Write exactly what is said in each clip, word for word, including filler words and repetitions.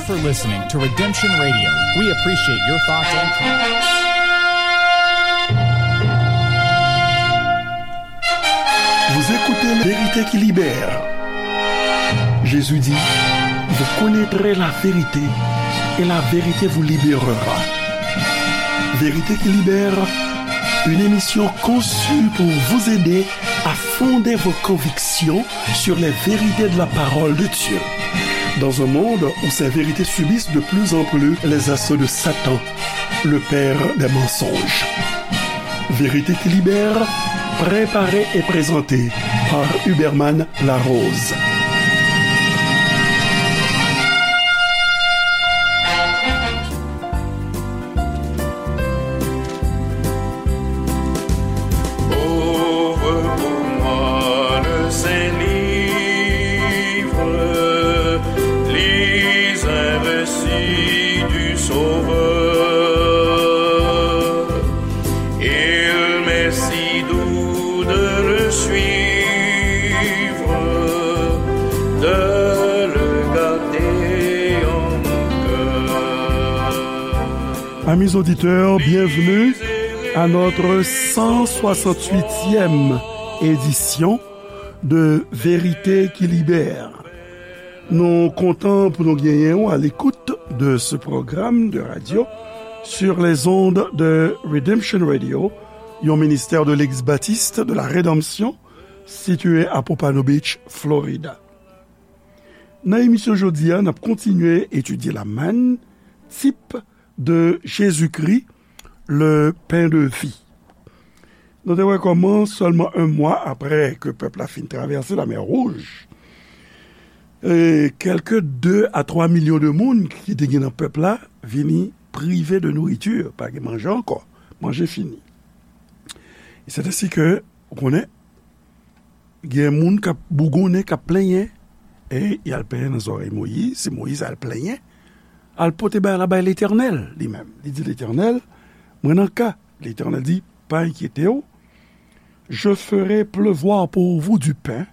For listening to Redemption Radio. We appreciate your thoughts and comments. Vous écoutez La Vérité qui libère. Jésus dit, vous connaîtrez la vérité et la vérité vous libérera. Vérité qui libère, une émission conçue pour vous aider à fonder vos convictions sur les vérités de la parole de Dieu. Dans un monde où ces vérités subissent de plus en plus les assauts de Satan, le père des mensonges. Vérité qui libère, préparée et présentée par Huberman Larose. Ouvre pour moi le Saint-Livre, lis un récit du Sauveur. Il m'est si doux de le suivre, de le garder en mon cœur. Amis auditeurs, bienvenue à notre cent soixante-huitième édition de Vérité qui libère. Nou kontan pou nou genyen w à l'écoute de ce programme de radio sur les ondes de Redemption Radio, yon ministère de l'Église baptiste de la Rédemption, situé à Pompano Beach, Florida. Nan emisyon jodi a, n ap kontinye etidye lamàn, type de Jésus-Christ, le pain de vie. Nou te wè kòman sèlman yon mwa apre ke pèp la fin travèse Lamè Wouj, e kèlke de a twa milyon de moun ki te gen nan pèp la vini prive de nourriture, pa gen manje ankò, manje fini. E c'est ainsi que, ou konnen, gen moun k ap bougonnen, k ap plenyen, e y al plenyen nan zòrèy Moyiz, se Moyiz al plenyen, al pote bagay la bay Letènèl li menm. Li di Letènèl, mwen nan ka. Letènèl di, pa enkyete w, je ferai pleuvoir pour vous du pain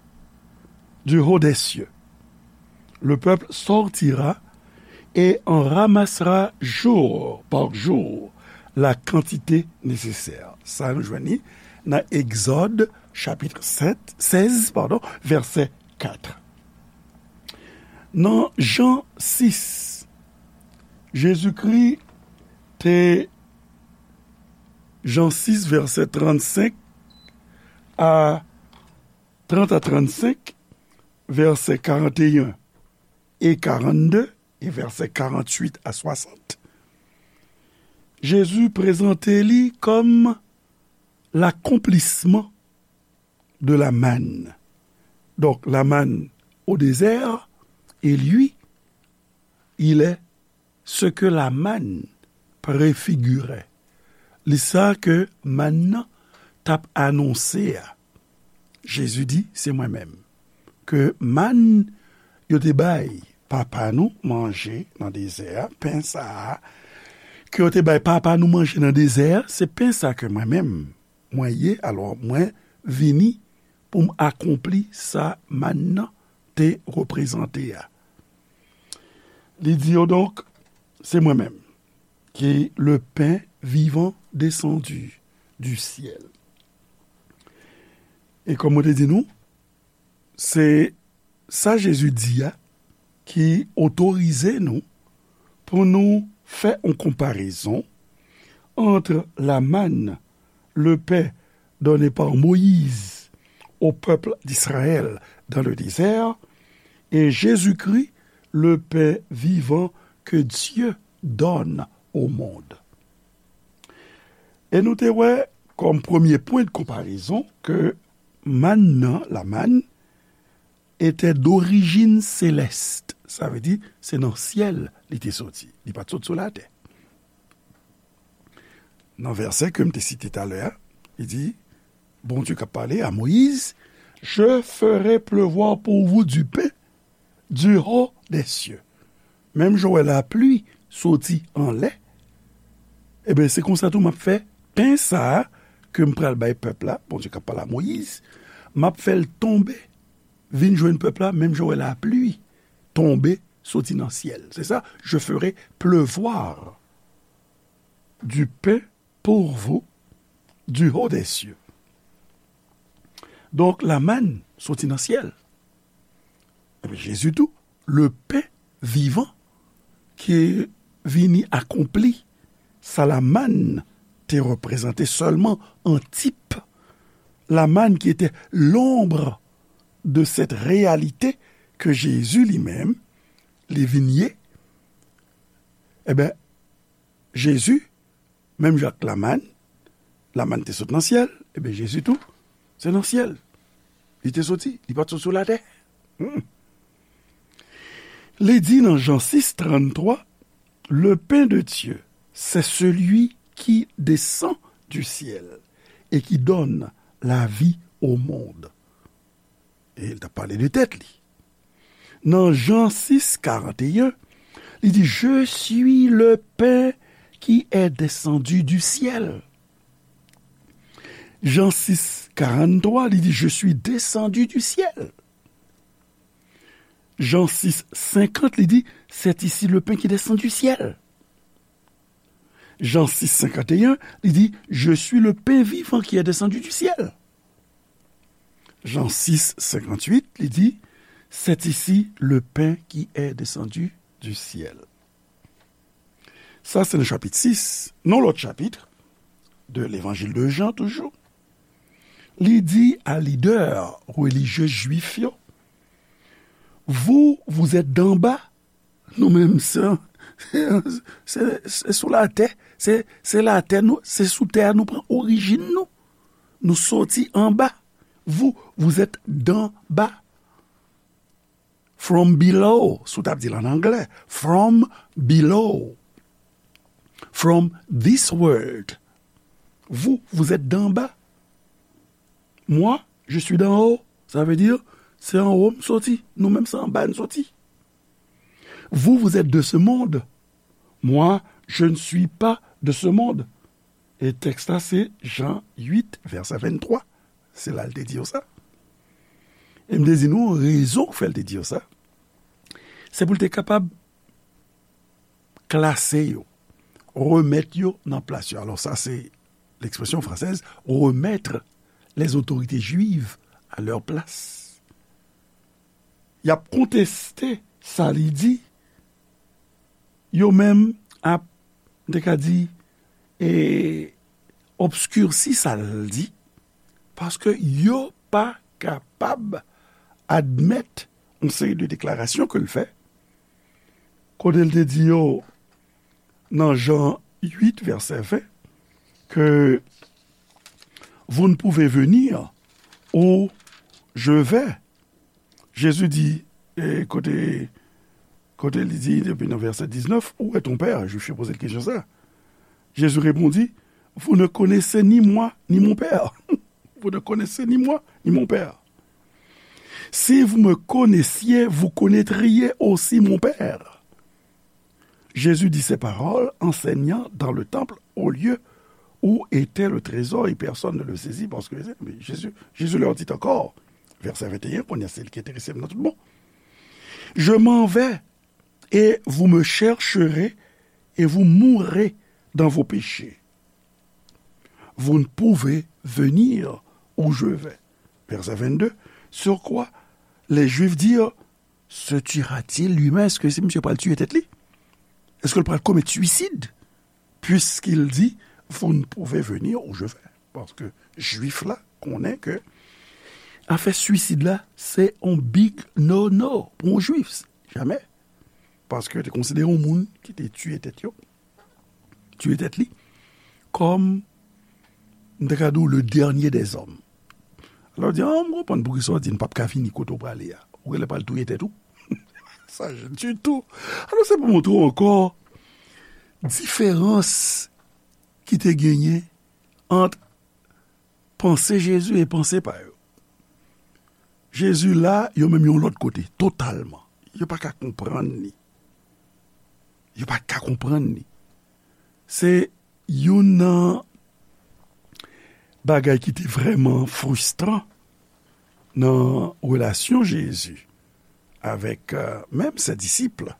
du haut des cieux. Le peuple sortira et en ramassera jour par jour la quantité nécessaire. Sa nou jwenn li nan Egzòd chapit sèt, sèz, padon, vèsè kat. Nan Jan sis, Jezikri te, Jan sis, vèsè trannsenk a, trant a trannsenk, vèsè karanteyen e karannde, e vèsè karannwit a swasant, Jezi prezante li kòm l'accomplissement de la manne. Donc, la manne au désert, et lui, il est ce que la manne préfigurait. Li sa ke mann nan t ap anonse a. Jezi di, se mwen menm. Ke mann yo te bay papa nou manje nan dezè a, pen sa a, ke yo te bay papa nou manje nan dezè a, se pen sa ke mwen menm, mwen ye, alò mwen vini pou m akonpli sa mann nan te reprezante a. Li di yo, donk, se mwen menm ki le pain vivant descendu du ciel. E kòm mwen te di nou, se sa Jezi di a ki otorize nou pou nou fè yon konparezon ant la manne, le pain donné par Moïse au peuple d'Israël dans le désert, et Jésus-Christ, le pain vivant que Dieu donne au monde. E nou te wè kòm premye pwen de konparezon ke mann nan, la manne, était d'origine céleste. Sa vle di, se nan syèl li te soti. Li pa t sot sou latè. Nan vèsè ke m te site talè a, li di, Bondye k ap pale a Moyiz, je ferai pleuvoir pour vous du pain du haut des cieux. Menm jan w wè lapli soti anlè, ebyen, se konsa tou m ap fè pen sa a ke m pral bay pèp la, Bondye k ap pale a Moyiz, m ap fè l tonbe, vin jwenn pèp la, menm jan w wè lapli tonbe soti nan syèl. Se sa, je ferai pleuvoir du pain pour vous du haut des cieux. Donk, lamann soti nan syèl. Epi Jezi tou, le pen vivan ki vini akonpli sa lamann te reprezante sèlman an tip. Lamann ki était l'ombre de cette réalité que Jésus lui-même, li vin ye. Ebyen, Jezi, menm jan ak lamann, lamann te sot nan syèl, ebyen, Jezi tou, se nan syèl li te soti, li pa t sot sou latè. Hmm. Li di nan Jan sis, tranntwa, le pain de Dieu, c'est celui qui descend du ciel et qui donne la vie au monde. E l t ap pale de tèt li. Nan Jan sis, karanteyen, li di, je suis le pain qui est descendu du ciel. Jan sis, karanntwa, li di, je suis descendu du ciel. Jan sis, senkant, li di, c'est ici le pain qui descend du ciel. Jan sis, senkant e en, li di, je suis le pain vivant qui est descendu du ciel. Jan sis, senkant uit, li di, c'est ici le pain qui est descendu du ciel. Sa se nan chapit sis. Nan lòt chapit de levanjil de Jan toujou, li di a lidè relijye jwif yo, vous, vous êtes d'en bas, nou menm se, se, se sou latè, se, se latè nou, se sou tè a nou pran orijin nou. Nou soti anba. Vous, vous êtes d'en bas. From below, si w t ap di l an anglè. From below. From this world. Vous, vous êtes d'en bas. Moi, je suis d'en haut. Sa vle di, se anwo m soti. Nou menm se anba n soti. Vous, vous êtes de ce monde. Moi, je ne suis pas de ce monde. E tèks la se Jan uit, vèsè venntwa. Se la l te di yo sa. E m te di nou rezon k fè l te di yo sa. Se pou l te kapab klase yo, remèt yo nan plas yo. Alò, sa se l'expression française, remettre les autorités juives à leur place. Y ap konteste sa li di, yo menm ap, m te ka di, e, obskirsi sa l di, paske yo pa kapab admèt yon seri de deklarasyon ke l fè, kote l te di yo nan Jan uit, vèsè ven, ke vous ne pouvez venir où je vais. Jezi di, e, kote, kote li di, depi nan vèsè diznèf, où est ton père? Jwif yo poze l kesyon sa. Jésus répondit, vous ne connaissez ni moi, ni mon père. Vous ne connaissez ni moi, ni mon père. Si vous me connaissiez, vous connaîtriez aussi mon père. Jésus dit ces paroles, enseignant dans le temple, au lieu où était le trésor, et personne ne le saisit, parce que Jésus, Jésus leur dit encore, verset vingt et un, kounye a se li ki enterese m nan tout bon. Je m'en vais, et vous me chercherez, et vous mourrez dans vos péchés. Vous ne pouvez venir où je vais. Verset vingt-deux, sur quoi les Juifs dirent, se tuera-t-il lui-même? Èske se misye pral tiye tèt li? Èske l pral komèt swisid? Puisqu'il dit, vous ne pouvez venir où je vais. Paske Jwif la konnen ke afè swisid la, se yon big no-no pou yon Jwif. Jamè. Paske yo te konsidere yon moun ki te tiye tèt yo, tiye tèt li, kòm, m te ka di w, le dernier des hommes. Alò, w di, ah, m konprann poukisa w di n p ap ka vini kote w prale a. Ou genlè pral touye tèt ou. Sa ditou. Alò, se pou montre w ankò diferans ki te genyen ant panse Jezi e panse pa yo. Jezi la, yo menm yon lòt kote, totalman. Yo pa ka konprann li. Yo pa ka konprann li. Se youn nan bagay ki te vrèman fristran nan relasyon Jezi avec euh, même ses disciples.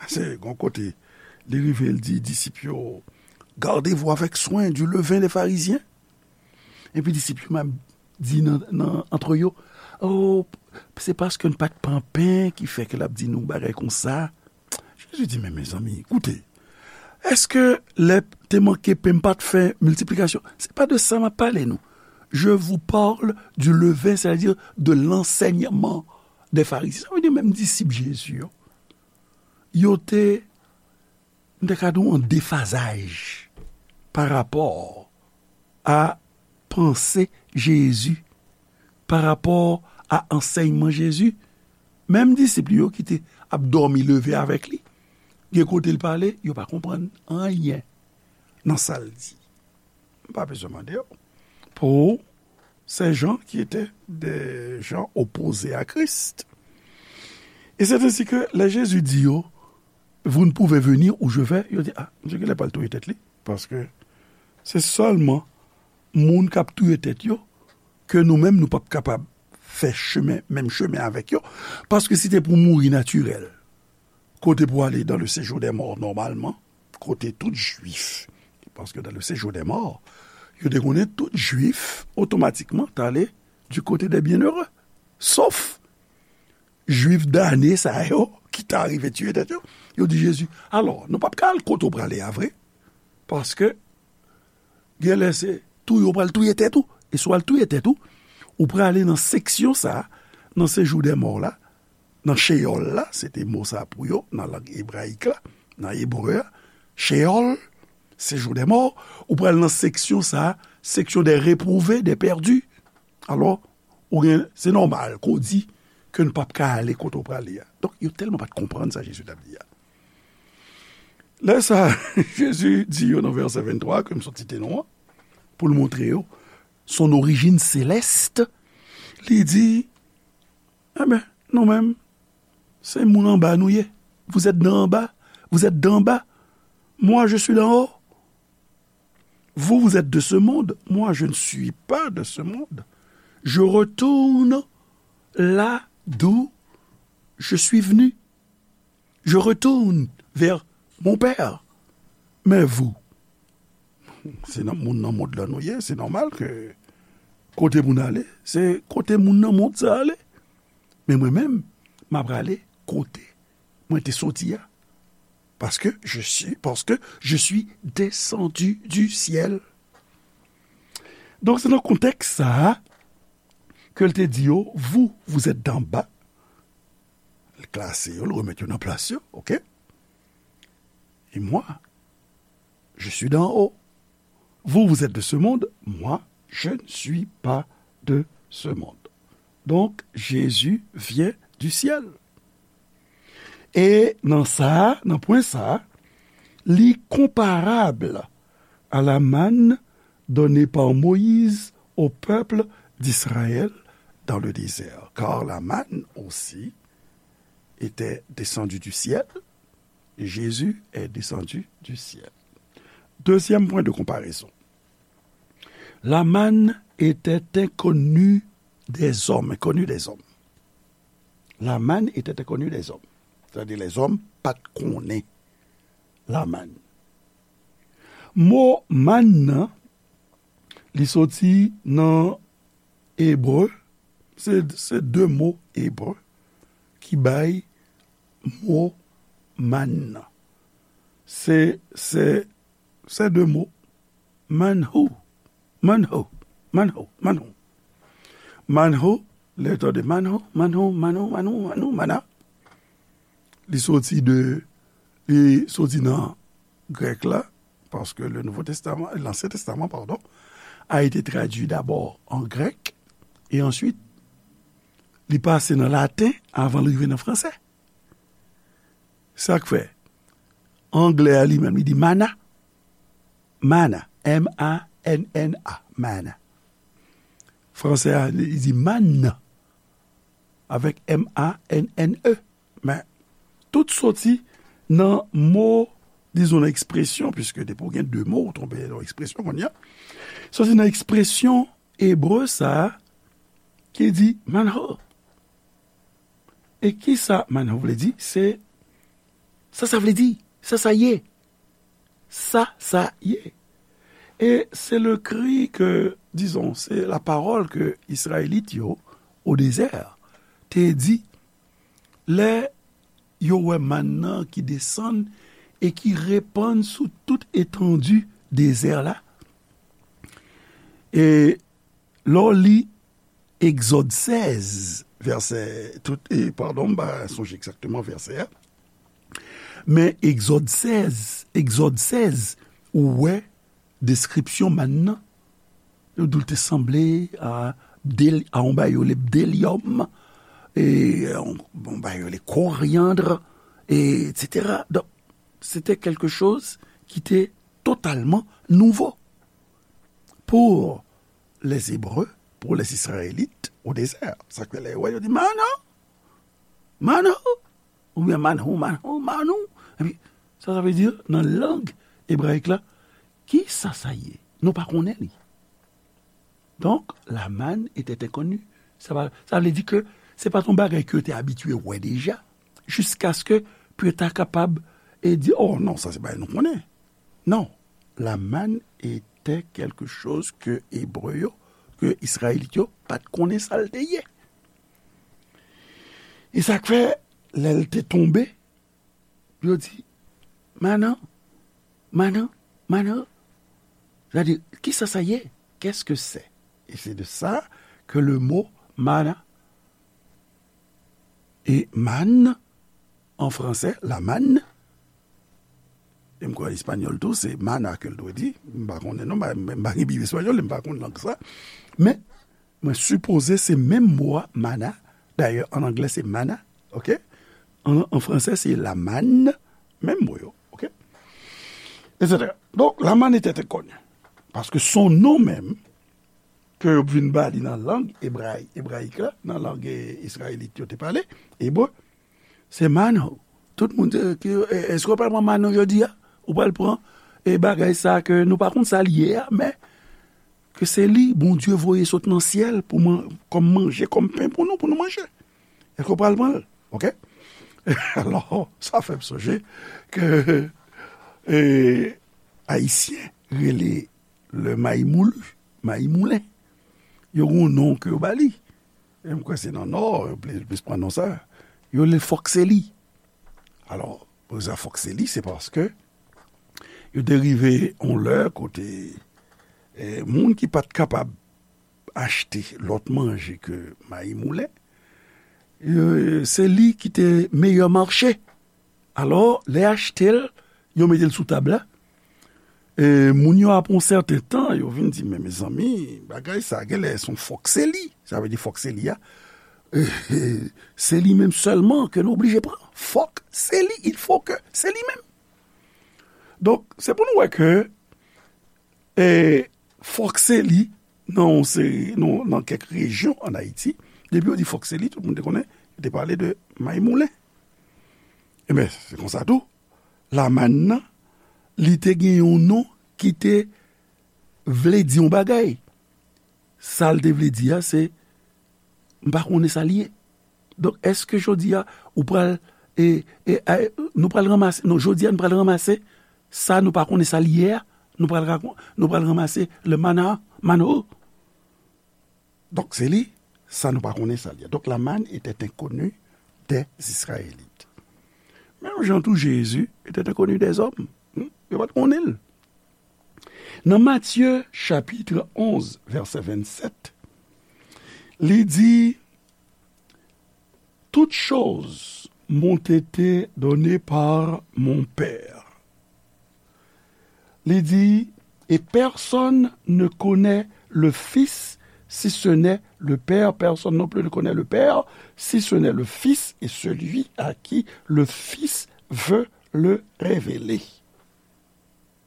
Se yon kote, li rive, li di disip yo, gardez-vous avec soin du levain des pharisiens. Epi disip yo menm di nan, nan, antre yo, oh, se paske n pa t pran pen ki fè ke l ap di nou bagay konsa. Jezi di, men mezanmi, koute, èske lè te manke pen m pa t fè miltiplikasyon? Se pa de sa m ap pale nou. Je vous parle du levain, c'est-à-dire de l'enseignement des pharisiens. Sa vle di menm disip Jezi yo, yo te, m te ka di w, an defazaj pa rapò a panse Jezi, pa rapò a ansèyman Jezi. Menm disip li yo ki te ap dòmi leve avèk li, gen kote l pale, yo pa konprann anyen nan sa l di. M pa bezwen mande w. Pour ces gens qui étaient des gens opposés à Christ. Et c'est ainsi que lè Jezi di yo, vous ne pouvez venir où je vais, yo di, ah, misye genlè pral touye tèt li. Paske se sèlman moun k ap touye tèt yo ke nou menm nou p ap kapab fè chemen, menm chemen avèk yo. Paske si te pou mouri natirèl, kote pou ale dans le séjour des morts nòmalman, kote tout jwif, paske dans le séjour des morts, yo te konnen tout jwif otomatikman t ale du côté des bienheureux. Sof jwif dane sa yo ki ta rive tiye tèt yo. Yo di Jezi, alò, nou p ap ka al kote w prale a vre, paske genlè se touye w pral touye tèt ou. E si w al touye tèt ou, ou prale nan seksyon sa a, nan séjour des morts la, nan cheyòl la, se te mo sa pou yo, nan lang ebrayik la, nan ebre a, cheyòl, séjour des morts, ou pral nan seksyon sa a, section des réprouvés, des perdus. Alò, ou gen, se nòmal ke w di ke n p ap ka ale kote w prale a. Donk, yo tèlman pa t konprann sa Jezi t ap di a. Lè sa, Jezi di yo nan vèsè venntwa, ke m sot site non an, pou l montre yo son origine céleste, li di, enben, nou menm, se moun anba nou ye. Vous êtes d'en bas, vous êtes d'en bas. Moi, je suis d'en haut. Vous, vous êtes de ce monde, moi, je ne suis pas de ce monde. Je retourne là d'où je suis venu. Je retourne vers mon Père. Mais vous, se nan, moun nan mond lan nou ye, se nòmal ke kote moun ale, se kote moun nan mond sa ale. Men mwen menm, m ap prale kote mwen te soti a. Parce que je suis, parce que je suis descendu du ciel. Donk, se nan kontèks sa a ke l te di yo, vous, vous êtes d'en bas. L klase yo, l remèt yo nan plas yo, oke? Et moi, je suis d'en haut. Vous, vous êtes de ce monde, moi, je ne suis pas de ce monde. Donc, Jésus vient du ciel. E nan sa, nan pwen sa, li konparab a la manne donnée par Moïse au peuple d'Israël dans le désert, car la manne aussi était descendue du ciel, et Jésus est descendu du ciel. Deuxième point de comparaison. La manne était inconnue des hommes, inconnue des hommes. La manne était inconnue des hommes. Sètadi lèzòm pa t konnen lamann. Mo mann nan, li soti nan ebre, se, se de mo ebre ki bay mo mann nan. Se, se, se de mo. Manhu, manhu, manhu, manhu. Manhu, lè w tande manhu, manhu, manhu, manhu, manhu, mana. Li soti de, li soti nan grèk la, paske le Nouveau Testament, l'Ancien Testament, pardon, a été traduit d'abord en grec, et ensuite, li pase nan laten avan l rive nan fransè. Sa k fè, anglè a li menm, li di mana. Mana. M A N N A. Mana. Fransè a, li di mann. Avèk M A N N E. Men, tout soti nan mo, dizon, nan ekspresyon, piske depi w gen de mo, ou tonbe nan ekspresyon kounye a. Soti nan ekspresyon ebre sa a, ki di manho. E ki sa manna vle di? Se sa sa vle di. Sa sa ye. Sa sa ye. Et c'est le cri que, disons, c'est la parole que Israélite yo, au désert, te di, lè yo wè manna ki desann e ki repann sou tout etandi dezè la. E lè w li Egzòd sèz, vèsè, tout, e, padon, m pa sonje egzakteman vèsè a. Men Egzòd sèz, Egzòd sèz, ou wè deskripsyon manna. Yo di w te sanble a, bdèl-, a yon bagay yo rele bdelyòm, e yon, yon bagay yo rele koryandr, e, et cetera. Donk, se te quelque chose ki te totalman nouvo pour les Hébreux, pour les Israélites au désert. Sa k fè lè yo wè, yo di, manna, manna, oubyen manhou, manhou, mannou. Epi, sa, sa vle di, nan lang ebrayik la, ki sa sa ye? Nou pa konnen li. Donk, la manne était inconnue. Sa va, sa vle di ke se pa t yon bagay ke yo te abitye wè deja, jiskaske pou yo ta kapab e di, oh non, sa se bagay nou konnen. Non, la manne était quelque chose que Ebre yo, ke Izrayelit yo, pa t konnen sa l te ye. E sa k fè, lè l te tonbe, yo di, manna, manna, manna. Sa di, ki sa sa ye? Qu'est-ce que c'est? Et c'est de ça que le mot manna et manne en français, la manne, e m kwè an espanyòl tou, se mana ke l dwe di. M pa konnen non, m pa, m pa gen Bib espanyòl, m pa konn lang sa. Men, mwen sipoze se menm mo a, mana. Dayè, an anglè, se mana, oke? An, an fransè, se la manne, menm mo yo, oke? Etsetera. Donk, la manne était inconnue. Paske son non menm, ke yo vin ba li nan lang ebrayi-, ebrayik la, nan lang, e, izrayelit yo te pale, ebre, se manna. Tout moun di, ki, e, èske w pral pran manna jodi a? Ou pral pran, e, bagay sa ke nou pa konn sa l ye a, men ke se li Bondye voye sot nan syèl pou man-, kòm manje, kòm pen pou nou, pou nou manje. Èske w pral pran l? Oke? Alò, sa fè m sonje ke, e, Ayisyen rele le mayi moulu, mayi moulen. Yo gen yon non ke yo ba li. E m kwè se nan Nò, yo plis, plis pran non sa. Yo rele l fòkseli. Alò, pou sa fòkseli, se paske yo te rive yon lè kote, e, moun ki pa t kapab achte lòt manje ke mayi moulen, e, se li ki te meyè mache. Alò, lè achte l, yo mete l sou tab la. E, moun yo apre yon sèten tan, yo vin di, men mezanmi, bagay sa, genlè se yon fòkseli. Sa vle di fòkseli a, e, e, se li menm sèlman ke nou oblije pran. Fòkseli, il faut que, se li menm. Donk, se pou nou wè ke, e, fòkseli, nan yon seri, nan, nan kèk rejyon ann Ayiti, depi yo di fòkseli, tout moun te konnen, yo te pale de mayi moulen. Ebyen, se konsa tou, la manne nan, li te gen yon non ki te vle di yon bagay. Sa l te vle di a, se, m pa konnen sa l ye. Donk, èske jodi a, ou pral, e, e, e, nou pral ranmase, non, jodi a, nou pral ranmase sa nou pa konnen sa l ye a, nou pral rakon-, nou pral ranmase le mana, manna. Donk, se li, sa nou pa konnen sa l ye. Donc, la manne était inconnue des Israélites. Menm jan tou Jezi était inconnu des hommes. Hmm? Yo pa t konnen l. Nan Matye, chapit onz, vèsè vennsèt, li di, toutes choses m'ont été données par mon Père. Li di, et personne ne connaît le Fils si ce n'est le Père, personne non plus ne connaît le Père si ce n'est le Fils et celui à qui le Fils veut le révéler.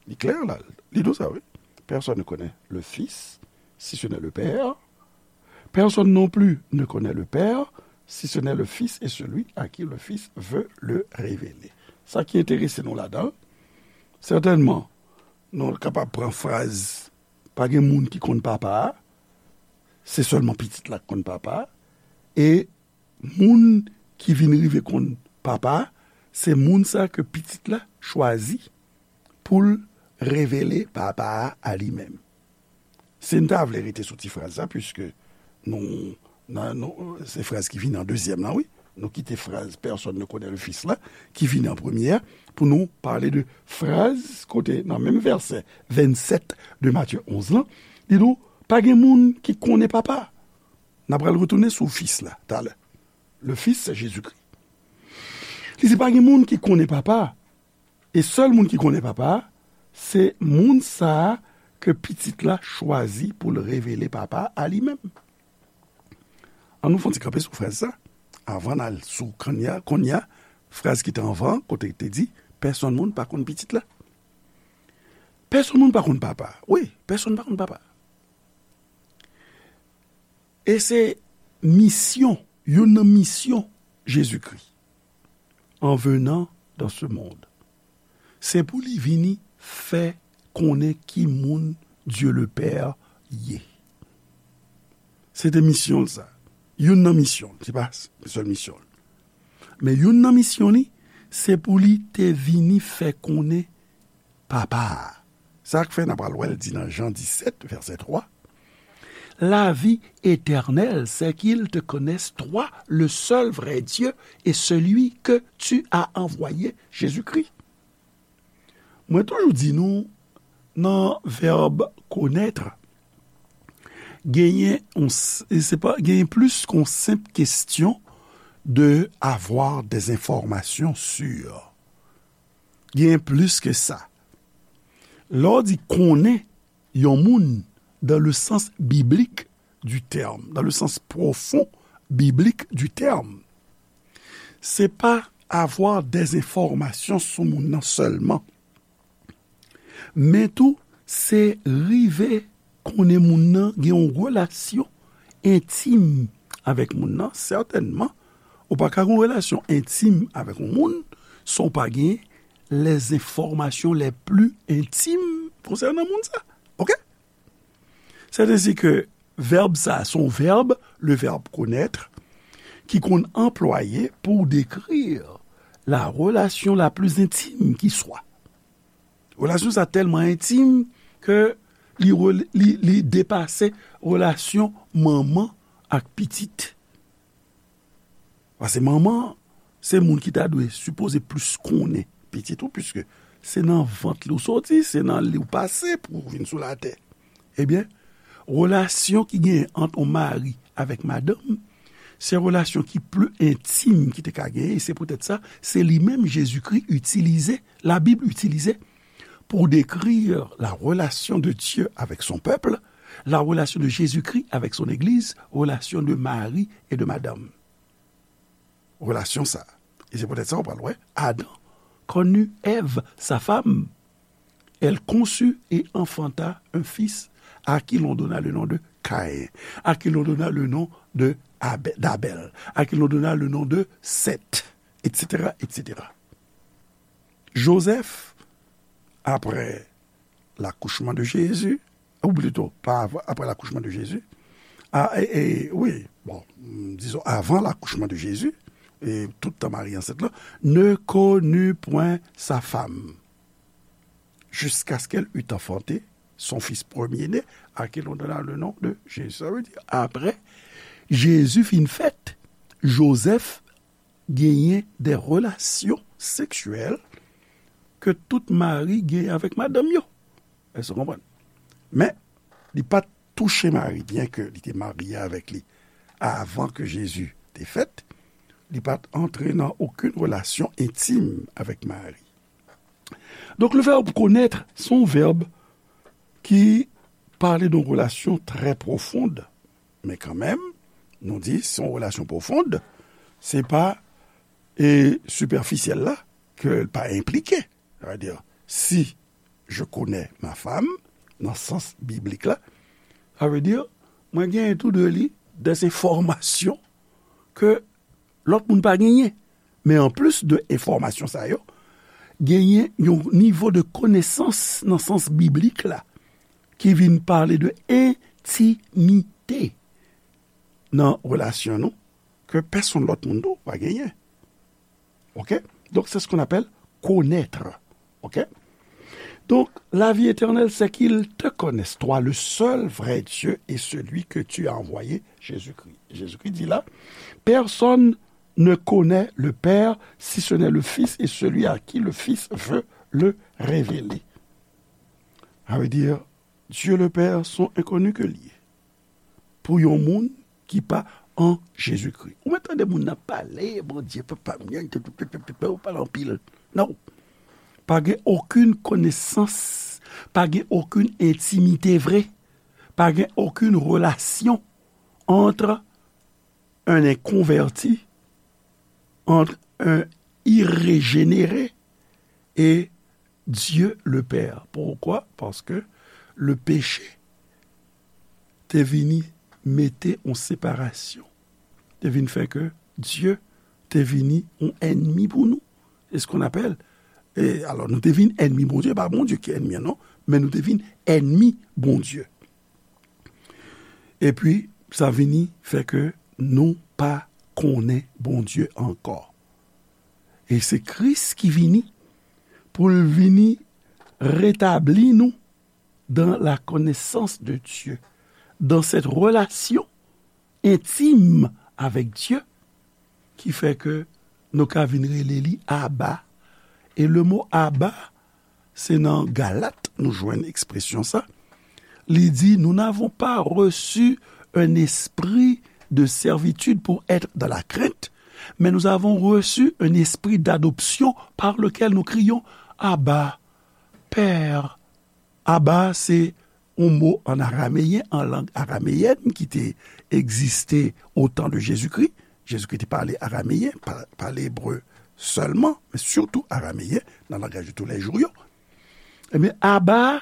Li klè la, li di w sa, wi. Personne ne connaît le Fils si ce n'est le Père. Personne non plus ne connaît le Père si ce n'est le Fils et celui à qui le Fils veut le révéler. Sa ki enterese nou ladan, sètènman, nou kapab pran fraz, pa gen moun ki konn Papa a, se sèlman Pitit la k konn Papa a, e moun ki vin rive konn Papa a, se moun sa ke Pitit la chwazi pou l revele Papa a a li menm. Si n ta vle rete sou ti fraz sa, piske nou, nan, nou, se fraz ki vini an dezyèm la, wi. Nou kite fraz personne ne connaît le Fils la, ki vini an premye a, pou nou pale de fraz kote, nan menm vèsè vennsèt de Matye onz lan, li di nou, pa gen moun ki konnen Papa. N a pral retounen sou Fis la, talè. Le Fils, c'est Jésus-Christ. Li di, pa gen moun ki konnen Papa. E sèl moun ki konnen Papa a, se moun sa a ke Pitit la chwazi pou l revele Papa a li menm. An nou fè yon ti kanpe sou fraz sa, avan n al sou kounye a, kounye a, fraz ki te anvan, kote te di, pèsonn moun pa konn Pitit la. Pèsonn moun pa konn Papa a. Wi, pèsonn pa konn Papa a. E se misyon, youn nan misyon Jezikri, en venant dans ce monde, se pou li vini fè konnen ki moun Dieu le Père ye. Se te misyon l sa. Youn nan misyon l, se pa sèl misyon l. Men youn nan misyon li, se pou li te vini fè konnen Papa a. Sa k fè n a pral wè l di nan Jan disèt, vèsè twa, la vie éternelle, c'est qu'ils te connaissent, toi, le seul vrai Dieu, et celui que tu as envoyé, Jésus-Christ. Mwen toujou di nou, nan vèb connaître, genyen, on, se pa, genyen plis ke yon senp kesyon de avoir des informations sûres. Genyen plis ke sa. Lè w di konnen yon moun dans le sens biblique du terme, dans le sens profond biblique du terme, se pa avoir des informations sou moun nan sèlman. Men tou, se rive konnen moun nan, gen yon relasyon entim avèk moun nan. Sètènman, ou pa ka gen yon relasyon entim avèk yon moun san w pa gen les informations les plus intimes concernant moun sa. Oke? C'est ainsi que vèb sa, se yon vèb, le verbe connaître, ki konn anplwaye pou dekri la relation la plus intime qui soit. Relasyon sa tèlman entim ke li, rel- li, li depase relasyon manman ak pitit. Paske manman an, se moun ki ta dwe sipoze plis konnen pitit ou, piske se nan vant li w soti, se nan li w pase pou w vin sou latè. Ebyen, relasyon ki genyen ant yon mari avèk madanm, se relasyon ki pli entim ki te ka genyen, e se poutèt sa, se li menm Jezikri itilize, Labib itilize, pour décrire la relation de Dieu avec son peuple, la relation de Jésus-Christ avec son Église, relation de mari et de madame. Relasyon sa. E se poutèt sa, w pral wè, Adam connut Ève, sa femme. Elle conçut et enfanta un fils à qui l'on donna le nom de Caïn, à qui l'on donna le nom de Abè- d'Abel, à qui l'on donna le nom de Seth, et cetera, et cetera. Joseph, après l'accouchement de Jésus, ou plutôt, pas avant, après l'accouchement de Jésus, ah, et, et, oui, bon, disons, avant l'accouchement de Jésus, et tout tan Marie enceinte là, ne connut point sa femme, jusqu'à ce qu'elle eût enfanté son fils premier-né, à qui l'on donna le nom de Jésus. Ça veut dire, après, Jésus fin fèt, Joseph genyen de relasyon seksyèl ke tout mari genyen avèk madanm yo. Èske w konprann? Men, li pa t touche Mari, byenke li te marye avèk li avan ke Jezi te fèt, li pa t antre nan okenn relasyon entim avèk Mari. Donk, le vèb konèt, se yon vèb ki pale de yon relasyon trè pwofond, men kanmenm, nou di, se yon relasyon pwofond, se pa, e, sipèfisyèl la, ke l pa enplike. Sa vle di, si je connais ma femme, nan sans biblik la, sa vle di, mwen genyen tou de li des enfòmasyon ke lòt moun pa genyen. Men anplis de enfòmasyon sa yo, genyen yon nivo de konesans nan sans biblik la ki vin pale de entimite nan relasyon nou, ke pèsonn lòt moun tou pa genyen. Ok? Donc, c'est ce qu'on appelle connaître. Ok? Donc, la vie éternelle, c'est qu'ils te connaissent, toi, le seul vrai Dieu, et celui que tu as envoyé, Jésus-Christ. Jésus-Christ dit là, personne ne connaît le Père si ce n'est le Fils et celui à qui le Fils veut le révéler. Ça veut dire, Dieu le Père sont inconnus que li ye. Pou yon moun ki pa an Jezikri. Ou mèt tande moun nan pale, Bondye, papa m, ou pale anpil. Non. Pa gen okenn konesans, pa gen okenn entimite vre, pa gen okenn relasyon entre un inconverti, entre un irrégénéré et Dieu le Père. Pourquoi? Parce que le péché te vini mete yon separasyon. Te vin fè ke Dye te vini yon ènmi pou nou. C'est ce qu'on appelle. E alò, nou te vin ènmi Bondye, pa Bondye ki ènmi an, non, men nou te vin ènmi Bondye. Epi, sa vini fè ke nou pa konnen Bondye ankò. E se Kris ki vini pou l vini retabli nou dans la connaissance de Dieu, dans cette relation intime avec Dieu, ki fè ke nou ka vin rele li Aba. E le mo Aba, se nan Galat nou jwenn ekspresyon sa. Li di, nous n'avons pas reçu un esprit de servitude pour être dans la crainte, mais nous avons reçu un esprit d'adoption par lequel nous crions, Abba, Père. Aba, se yon mo an arameyen, an lang arameyèn ki te egziste au temps de Jésus-Christ. Jezikri te pale arameyen, pa, pale ebre sèlman, men sitou arameyen nan langaj de tous les jours yo. Ebyen, Aba,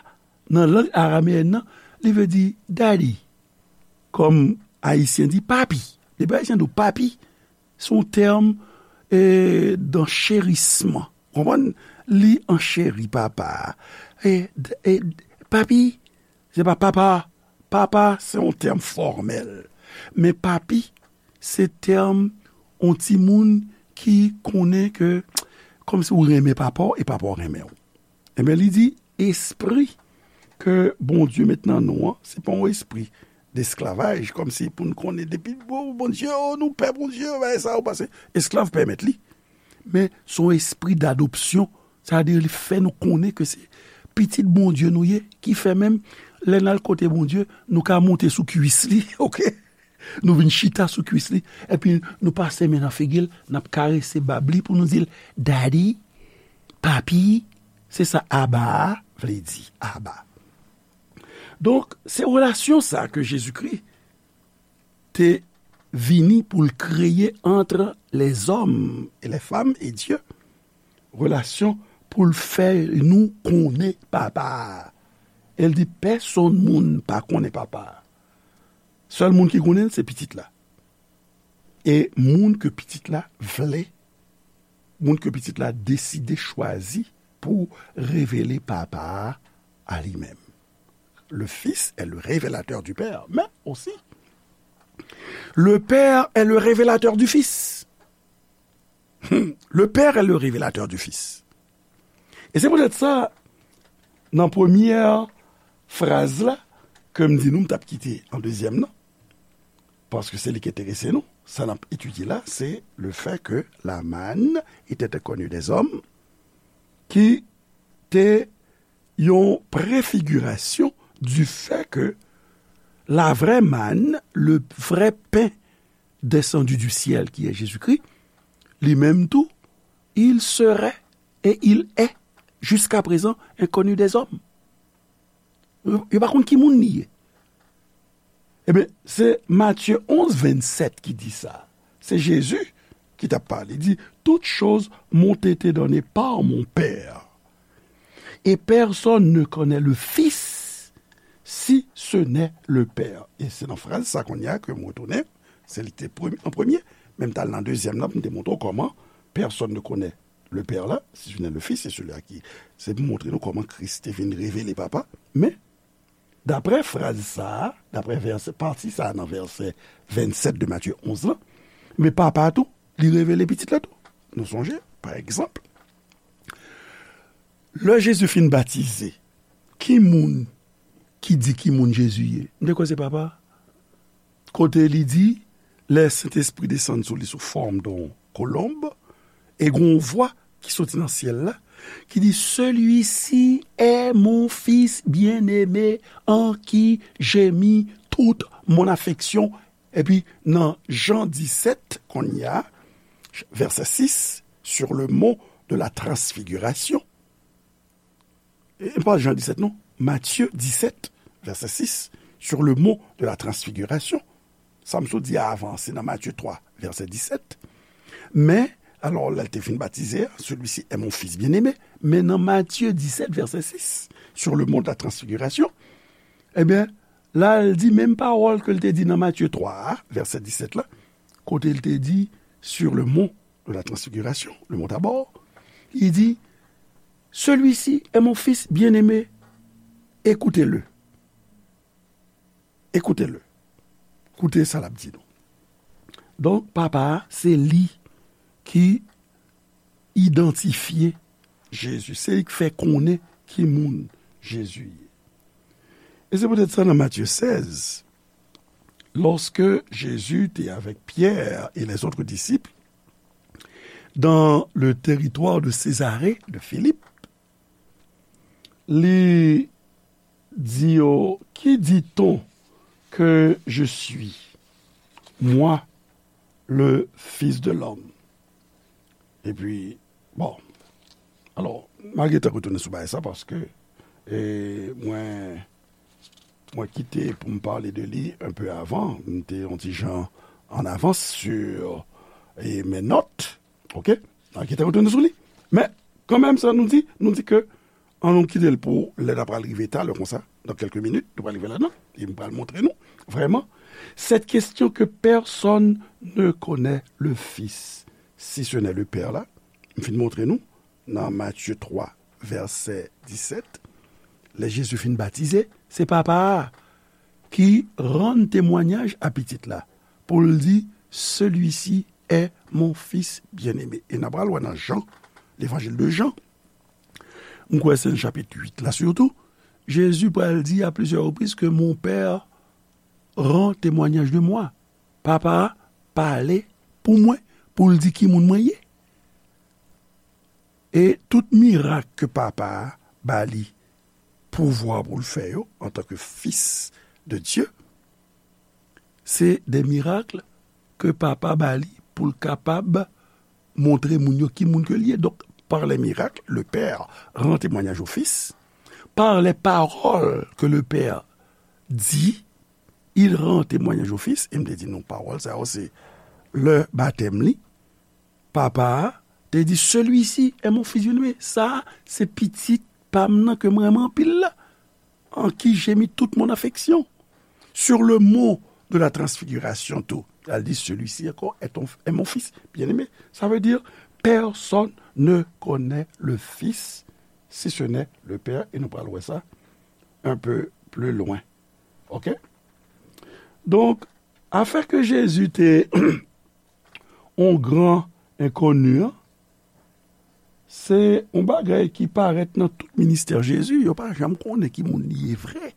nan lang arameyèn nan, li vle di daddy. Kòm Ayisyen di papi. Depi Ayisyen di w papi, se yon tèm, e, d'enchérisman. Konprann? Li ancheri papa a. E, e, papi, se pa papa. Papa, se yon tèm fòmèl. Men papi, se tèm yon timoun ki konnen ke, kòmsi w renmen papa w e papa w renmen w. Ebyen, li di, espri ke Bondye met nan nou an, se pa yon espri desklavaj, kòmsi pou n konnen depi, o, Bondye, o, nou pè Bondye, bagay sa yo, paske esklav pèmèt li. Men se yon espri dadopsyon, sa vle di li fè nou konnen ke se pitit Bondye nou ye, ki fè menm lè n al kote Bondye, nou ka monte sou kwis li, oke? Nou vin chita sou kwis li, epi nou pase men nan figi l, n ap karese bab li pou nou di l, daddy, papi, se sa Aba a vle di, Aba. Donk, se relasyon sa ke Jezikri te vini pou l kreye entre les hommes et les femmes et Dieu. Relasyon pou l fè nou konnen Papa a. E l di, pèsonn moun pa konnen Papa a. Sèl moun ki konnen l, se Pitit la. E moun ke Pitit la vle, moun ke Pitit la deside chwazi pou revele Papa a a li menm. Le Fils est le révélateur du Père, mais aussi, le Père est le révélateur du Fils. Le Père est le révélateur du Fils. E se poutèt sa, nan premyè fraz la, ke m di nou, m t ap kite an dezyèm nan, paske se li ki enterese nou, sa n ap etidye la, se le fait que la manne était inconnue des hommes, ki te yon préfiguration du fait que la vraie manne, le vrai pain descendu du ciel, qui est Jésus-Christ, li menm tou, il serait et il est jusqu'à présent inconnu des hommes. Yo, yo pa konn ki moun li ye. Ebyen, se Matye onz vennsèt ki di sa. Se Jezi ki t ap pale. Li di, toutes choses m'ont été données par mon Père. Et personne ne connaît le Fils si ce n'est le Père. E se nan fraz sa kounye a ke m retounen. Se li ki te premye, an premye. Men m t al nan dezyèm nan pou m te montre w kòman personne ne connaît le Père là, si ce n'est le Fils, c'est celui à qui. Se pou montre nou kòman Kris te vin revele Papa. Men, daprè fraz sa a, daprè vèsè, pati sa a nan vèsè vennsèt de Matye onz lan, Men Papa a tou, li revele Pitit la tou. Nou sonje, pa egzanp, lè Jezi fin batize, ki moun ki di ki moun Jezi ye? M te kwè se Papa a. Kote li di, lè Sentespri desann sou li sou fòm de yon kolonb, e gen yon vwa ki soti nan syèl la, ki di, Celui-ci est mon Fils bien-aimé, en qui j'ai mis toute mon affection. Epi nan Jan disèt, kounye a, vèsè sis, sur le mont de la transfiguration. E pa Jan disèt, non. Matye disèt, vèsè sis, sur le mont de la transfiguration. Sa m sot di a avan, se nan Matye twa, vèsè disèt. Men, alò, lè l te fin batize a, Celui-ci est mon Fils bien-aimé, men nan Matye disèt, vèsè sis, sur le mont de la transfiguration, ebyen, la, l di menm pawòl ke l te di nan Matye twa a, vèsè disèt la, kote l te di, sur le mont de la transfiguration, le mont Tabor, li di, Celui-ci est mon Fils bien-aimé, écoutez-le. Écoutez-le. Koute sa l ap di nou. Donk, Papa a, se li ki idantifye Jezi. Se li k fè konnen ki moun Jezi ye. E se poutèt sa, nan Matye sèz, lorsque Jésus était avec Pierre et les autres disciples dans le territoire de Césarée de Philippe, li di yo, Qui dit-on que je suis, moi, le Fils de l'homme? Epi, bon, alò, m a gentan retounen sou bagay sa paske, e, mwen, mwen kite pou m pale de li un peu avant. M te yon ti jan an avans sur, e, mes notes. Ok? M a gentan retounen sou li. Men, kanmenm sa nou di, nou di ke, an nou kite l pou lè n a pral rive talè konsa, dans quelques minutes, nou pral rive ladan, e m pral montre nou, vrèman, cette question que personne ne connaît le Fils, si ce n'est le Père la, m fin montre nou, nan Matye twa, vèsè disèt, lè Jezi fin batize, se Papa a ki rann temwayaj a Pitit la, pou l di, Celui-ci est mon Fils bien-aimé. E n a pral wè nan Jan, Levanjil de Jan, m kwè se nan chapit uit la sitou, Jezi pral di a plizyè repriz ke Mon Père rend témoignage de moi. Papa a pale pou mwen, pou l di ki moun mwen ye. E tout mirak ke Papa a ba li pouvwa pou l fè yo, antanke Fis de Dye, se de mirak ke Papa ba li pou l kapab montre moun yo ki moun ke l ye. Donk, par les miracles, le Père rend témoignage au Fils. Par les paroles que le Père dit, il rend témoignage au Fils. E m te di nou, pawòl sa yo, se lè batèm li. Papa a te di, Celui-ci est mon Fils bien-aimé. Sa a, se pitit pa m nan ke m renmen anpil la, en qui j'ai mis toute mon affection. Sur le mont de la transfiguration tou, al di, Celui-ci encore est ton, est mon Fils bien-aimé. Ça veut dire, personne ne connaît le Fils si ce n'est le Père. E nou pral wè sa un peu plus loin. Ok? Donk, afè ke Jezi te yon gran enkoni an, se yon bagay ki parèt nan tout ministè Jezi. Yo pa janm konnen ki moun li ye vre.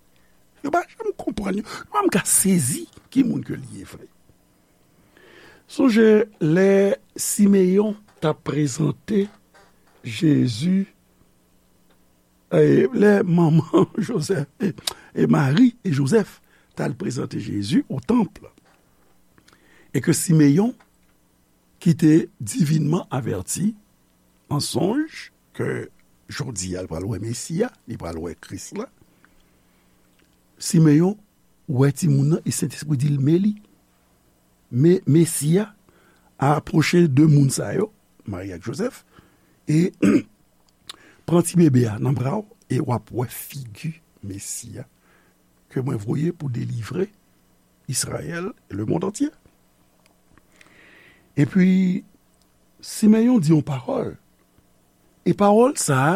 Yo pa janm konprann, yo pa janm ka sezi ki moun ke li ye vre. Sonje lè Simeyon t ap prezante Jezi, e, lè manman Jozèf, e, e Mari e Jozèf t al prezante Jezi o tanp, e ke Simeyon, ki te divinman avèti an sonj ke jodi a, l pral wè Mesi a, li pral wè Kris la. Simeyon wè timoun nan, e Sentespri di l, men li. Men Mesi a apwoche de moun sa yo, Mari ak Jozèf, e pran ti bebe a nan bra w, e w ap wè figi Mesi a ke mwen voye pou delivre Izrayèl e lemonn antye. Epi, Simeyon di yon pawòl. E pawòl sa a,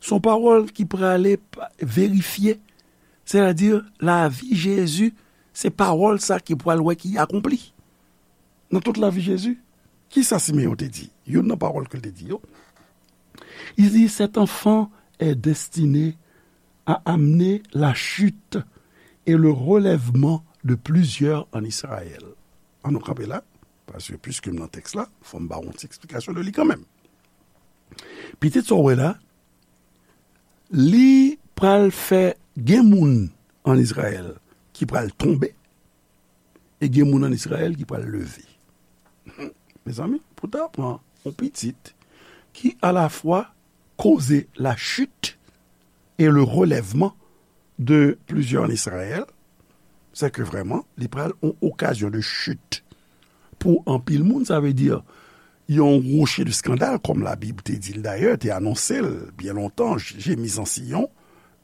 se yon pawòl ki prale pa-, verifye. Sètadi, lavi Jezi, se pawòl sa ki pral wè ki akonpli. nan tout lavi Jezi. Kisa Simeyon te di? Youn nan pawòl ke l te di yo. Il dit, cet enfant est destiné à amener la chute et le relèvement de plusieurs en Israël. An nou kanpe la, paske piske m nan tèks la, fò m ba w yon ti eksplikasyon de li kanmenm. Pitit sa w wè la, li pral fè gen moun an Izrayèl ki pral tonbe, e gen moun an Izrayèl ki pral leve. Mezanmi, pou ta pran yon pitit ki alafwa koze la chute et le relèvement de plusieurs en Israël, c'est que vraiment, li pral yon okazyon de chute pou anpil moun, sa vle di yon rocher de scandale, comme la Bible te di l dayè, te anonse l byen lontan, j'ai mis en Sion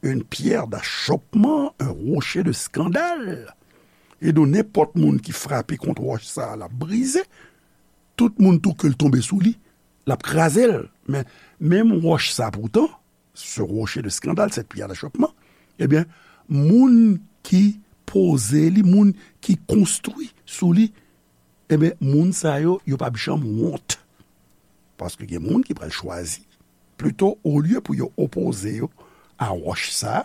une pierre d'achoppement, un rocher de scandale. E donk, nenpòt moun ki frape kont wòch sa a, l ap brize. Tout moun tou ke l tonbe sou li, l ap kraze l. Men, menm wòch sa, poutan, ce rocher de scandale, cette pierre d'achoppement, ebyen, moun ki poze li, moun ki konstwi sou li, ebyen, moun sa yo, yo p ap janm wont. Paske gen moun ki pral chwazi, plito, olye pou yo opoze yo a wòch sa,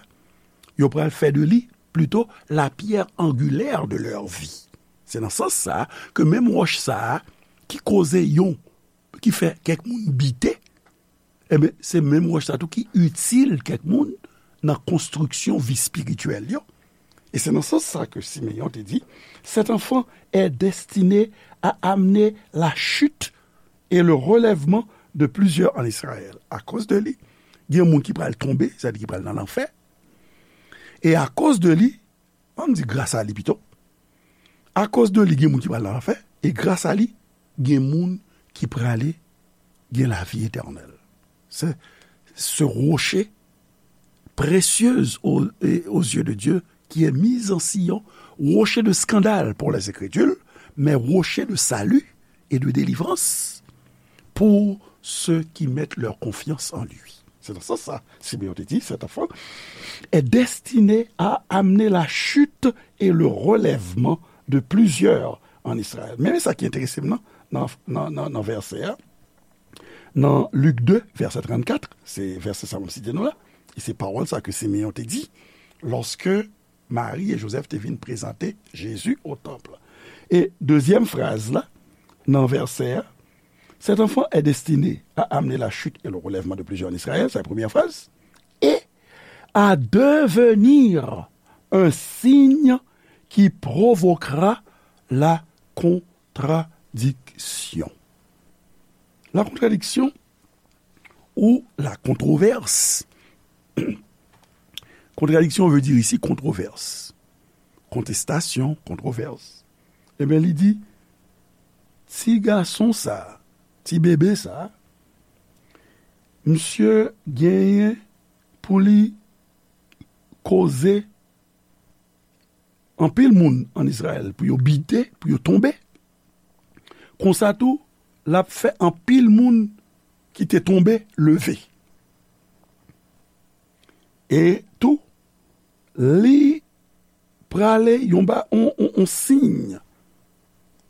yo pral fè de li, plito, la pierre angulaire de leur vie. Se nan sans sa ke menm wòch sa a ki koze yon, ki fè kèk moun bite, ebyen, se menm wòch sa tou ki itil kèk moun nan konstriksyon vi espirityèl yo. E se nan sans sa ke Simeyon te di, cet enfant est destiné à amener la chute et le relèvement de plusieurs en Israël. Akoz de li, gen moun ki pral tonbe, sa vle di ki pral nan lanfè. E akoz de li, ann di gras a li pito, akoz de li, gen moun ki pral nan lanfè, e gras a li, gen moun ki prale gen lavi etènèl. Se, ce rocher précieuse aux, et aux yeux de Dieu, qui est mis en Sion, rocher de scandale pour les incrédules, mais rocher de salut et de délivrance pour ceux qui mettent leur confiance en lui. Se nan sans sa, Simeyon te di, cet enfant est destiné à amener la chute et le relèvement de plusieurs en Israël. Men sa ki enterese m nan, nan, nan, nan, nan vèsè a, nan Lik de, vèsè trannkat, se vèsè sa m ap site nou la, e se pawòl sa ke Simeyon te di, lorsque Marie et Joseph te vin prezante Jezi o tanp. E dezyèm fraz la, nan vèsè a, cet enfant est destiné à amener la chute et le relèvement de plusieurs en Israël, sa se premyè fraz, et à devenir un signe qui provoquera la contradiction. La contradiction ou la controverse. Contradiction veut dire ici controverse. Kontestasyon, kontwovès. Ebyen, li di, ti gason sa, ti bebe sa, misye genyen pou li koze anpil moun an Izrayèl, pou yo bite, pou yo tonbe. Konsa tou, l ap fè anpil moun ki te tonbe leve. E tou, li prale yon ba, on, on, on siy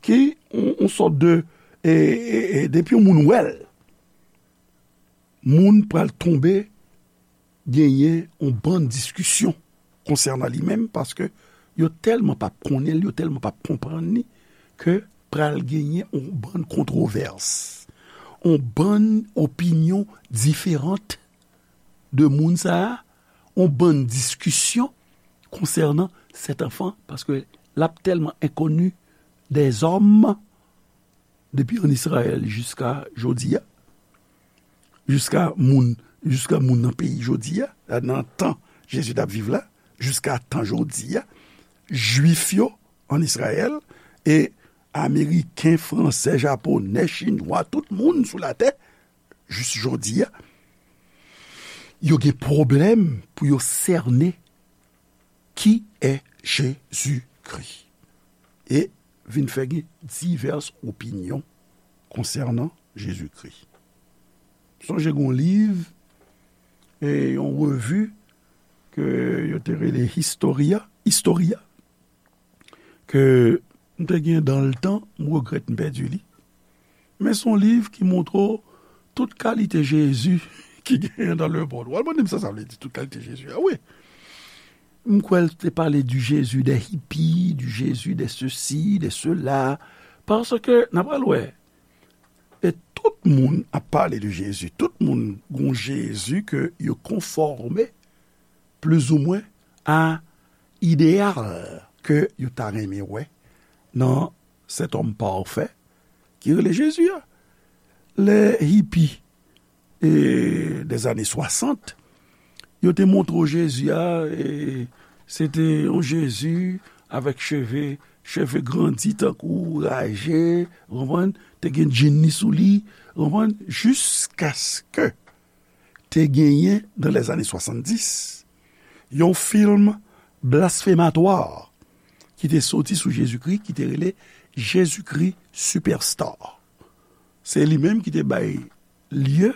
ki on, on sòt de, e, e, e, depi yon moun wè l, moun pral tonbe genyen on bann diskisyon konsènan li menm, paske yo tèlman p ap konnen l, yo tèlman p ap konprann li, ke pral genyen on bann kontwovès, on bann opinyon diferan de moun sa a, on bann diskisyon konsènan sèt anfan, paske l ap tèlman enkoni dèzòm depi an Izrayèl jiska jodi a, jiska moun, jiska moun nan peyi jodi a, nan tan Jezi t ap viv la, jiska tan jodi a, Jwif yo an Izrayèl, e Ameriken, Fransè, Japonè, Chinwa, tout moun sou latè, jis jodi a, yo gen pwoblèm pou yo sène qui est Jésus-Christ. E vin fè gen divès opinyon konsènan Jezikri. Sonje gen yon liv e yon revi ke yo te rele Historia, Historia, ke M te gen dans le temps, m regrèt m pèdi li. Men se yon liv ki montre w tout kalite Jezi ki genyen dans le monde. W al mande m sa sa vle di, tout kalite Jezi a, wi. M kwè l te pale du Jésus des hippies, du Jésus des ceci, des cela. Paske, n a pral wè, e tout moun ap pale de Jezi. Tout moun gon Jezi ke yo konfòme plizoumwen a ideyal ke yo ta renmen wè nan cet homme parfait ki rele Jezi a. Lè hipi e, des années soixante, yo te montre w Jezi a, e, se te yon Jezi avèk cheve, cheve grandi tankou raje, ou konprann, te gen djinn li sou li, ou konprann, jiskaske te genyen, dans les années soixante-dix, yon fim blasfematwa ki te soti sou Jezikri, ki te rele Jezikri Superstar. Se li menm ki te bay lye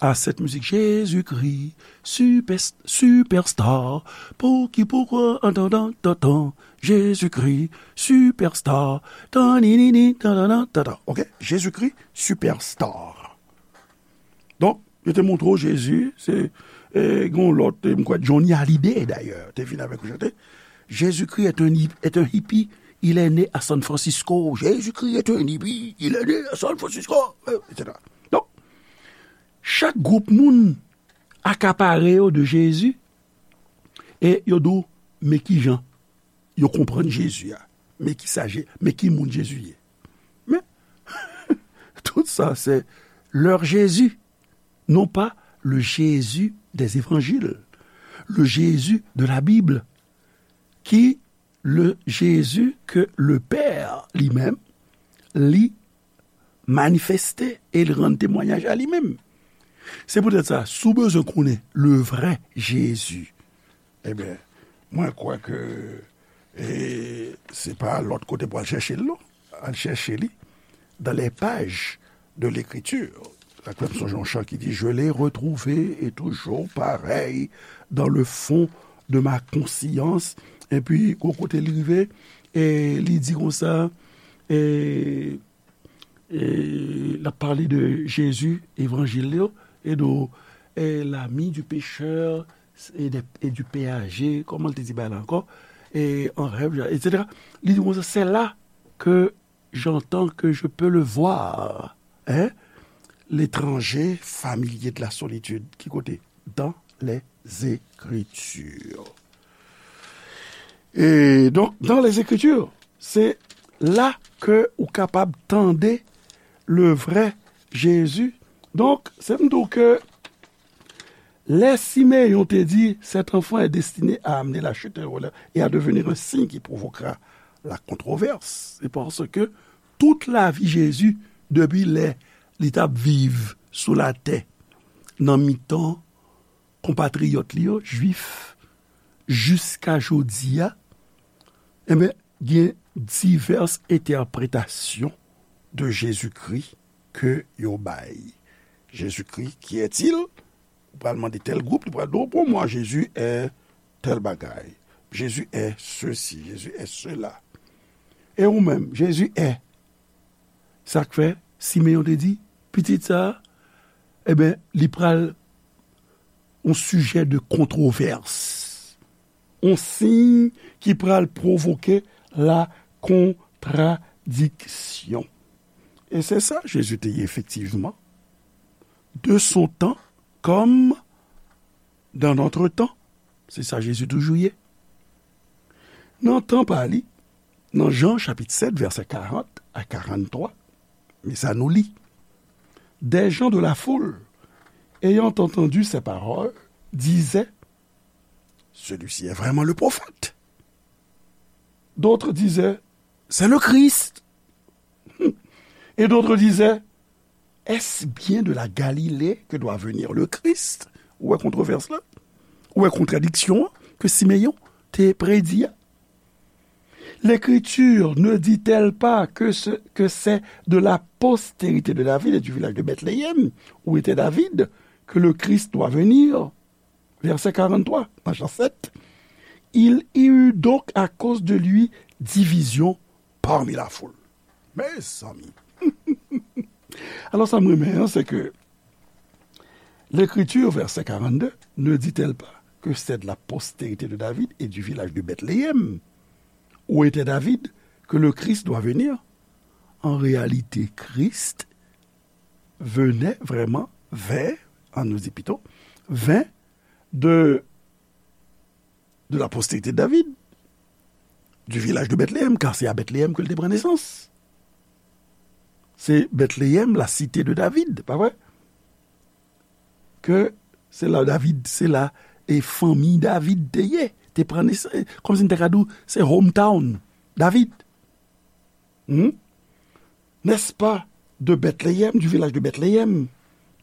a cette musique Jésus-Christ, super, superstar. Pour qui, pourquoi, en tant, tant, tant, tant. Jésus-Christ, superstar. Tan, ni, ni, ni, tan, tan, tan, tan, tan. Ok? Jésus-Christ, superstar. Donk, yo te montre w Jezi, se, e, gen yon lòt, e, m kwè Johnny Hallyday, dayè, te vin avèk yon chante. Jésus-Christ est un, hi- est un hippie, il est né à San Francisco. Jésus-Christ est un hippie, il est né à San Francisco, e, et cetera. Donk, chak gwoup moun akapare yo de Jezi, e yo di w, men ki jan yo konprann Jezi a, men ki sa Je- men ki moun Jezi ye. Men, tout sa, c'est leur Jésus, non pas le Jésus des évangiles, le Jésus de la Bible, ki le Jésus que le Père li menm li manifeste e l rann temwayaj a li menm. Se poutèt sa, si w bezwen konnen le vrai Jésus, ebyen, mwen kwè ke, e, se pa lòt kote pou al chèche l, non. Al chèche li dans les pages de l'Écriture. Sa k fè m sonje yon chan ki di, je l'ai retrouvé et toujours pareil dans le fond de ma conscience. Epi, gwo kote li rive, e li di konsa, e, e l ap pale de Jezi, evanjil yo, e de, e, l'ami du pécheur, e, de, e du péager, kòman l te di bagay la ankò? E, en rêve, et cetera. Li di konsa, c'est là que j'entends que je peux le voir, hein? L'étranger familier de la solitude. Ki kote? Dans les Écritures. E donk, dans les Écritures, se la ke ou kapab tande le vrai Jésus. Donk, se m di w ke lè Simeyon te di, cet enfant est destiné à amener la chute et à devenir un signe qui provoquera la controverse, c'est parce que tout lavi Jezi, depi lè li t ap viv sou latè, nan mitan konpatriyòt li yo, jwif, jiska jodi a, enben, gen divès entèpretasyon de Jezikri ke yo bay. Jezikri, qui est-il? Ou pral mande tèl gwoup, li pral di w, pour moi, Jésus est tèl bagay. Jésus est ceci, Jésus est cela. E ou menm, Jésus est. Sa k fè, Simeyon te di, pitit sa a, eben, li pral yon sijè de kontwovès. Yon siy ki pral pwovoke la kontradiksyon. E se sa Jezi te ye efektivman. De son temps comme dans notre temps. Se sa Jezi toujou ye. Nan tan pa li, nan Jan chapit sèt, vèsè karant a karanntwa, men sa nou li. Des gens de la foule, ayant entendu ces paroles, disaient, celui-ci est vraiment le prophète. D'autres disaient, c'est le Christ. Et d'autres disaient, est-ce bien de la Galilée que doit venir le Christ? Ou wè kontwovès la? Ou wè kontradiksyon an ke Simeyon te predi a? L'Écriture ne dit-elle pas que ce, que c'est de la postérité de David et du village de Bethléem, où était David, que le Christ doit venir? Verset quarante-trois, dans Jean sept. Il y eut donc à cause de lui division parmi la foule. Mezanmi. Alò, sa m renmen an, se ke L'Écriture, verset quarante-deux, ne dit-elle pas que c'est de la postérité de David et du village de Bethléem, où était David, que le Christ doit venir? En réalité, Christ venait vraiment vers, on nous dit plutôt, vint de, de la postérité de David, du village de Bethléem, car c'est à Bethléem que l te pran nesans. Se Bethléem, la cité de David, pa vre? Ke se la David, se la, e fanmi David te ye, te pran nesans, kòmsi n te ka di w, se hometown David. Hmm? N'est-ce pas de Bethléem, du village de Bethléem,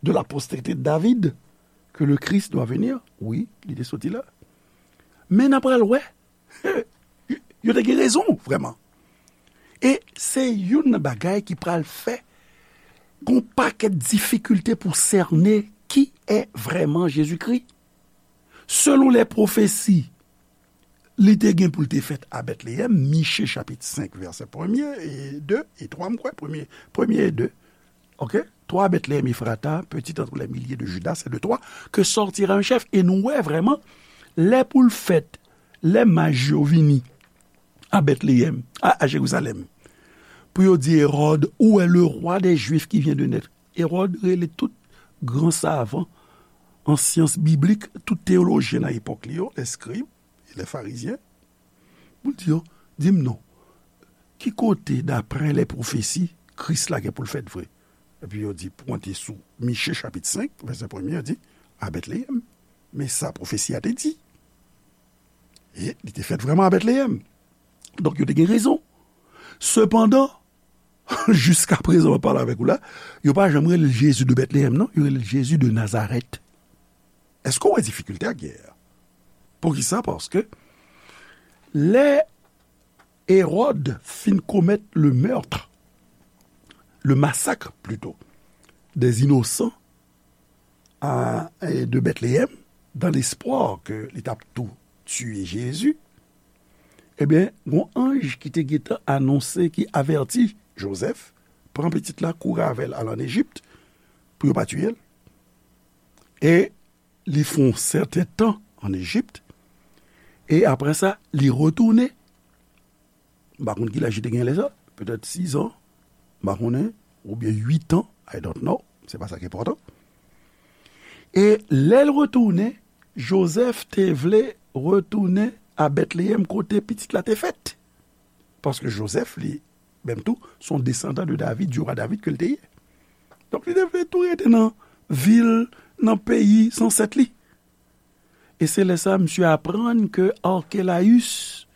de la postérité de David, que le Christ doit venir? Wi, li te soti la. Men n a pral wè, yo te gen rezon, vrèman. E se youn nan bagay ki pral fè gon pakèt difikilte pou sène ki è vrèman Jezikri. Selon lè pwofesi, li te gen pou l te fèt a Bètleyèm, Miche chapit senk, vèsè premye e de e twa, m kwè, premye, premye e de. Oke? Toi, Bethléem Ephrata, petit entre les milliers de Juda, c'est de toi que sortira un chef. E nou wè vrèman, lè pou l fèt, lè maj yo vini a Bètleyèm, a, a Jerizalèm, pou yo di Ewòd, où est le roi des Juifs qui vient de naître? Ewòd rele tout gran savan an syans biblik, tout teyolojyen nan epòk li yo, lè skrib e lè farizyen, pou l di yo, di m non, ki kote, daprè lè pwofesi, Kris la gen pou l fèt vre? Epi yo di, pwente sou Miche chapit senk, vèsè premye, yo di, a Bètleyèm. Men sa pwofesi a te di. E li te fèt vrèman a Bètleyèm. Donk, yo te gen rezon. Sepandan, jiska prezan, m ap pale avèk ou la, yo pa janm rele l Jezi de Bètleyèm, non. Yo rele l Jezi de Nazarèt. Èske w wè difikilte a k gen a? Poukisa? Paske lè Ewòd fin komèt le meurtre, le massacre plutôt, des innocents à, et de Bethléem, dans l'espoir que li t ap tou tiye Jezi, ebyen, gon anj ki te gentan anonse, ki avèti Jozèf, pran pitit la, kouri avè l, al ann Ejip, pou yo pa tiye l. E li fè yon sèten tan ann Ejip, e apre sa, li retounen. M pa konn ki laj li te gen lè sa, petèt sis an, m pa konnen, oubyen uit an, I don't know, se pa sa k enpòtan. E lè l retounen, Jozèf te vle retounen a Bètleyèm kote pitit la te fèt. Paske Jozèf, li menm tou, se yon desandan de David, du roi David ke l te ye. Donk, li te vle tou rete nan vil, nan peyi zansèt li. E se lè sa a, misye aprann ke Arkelayis,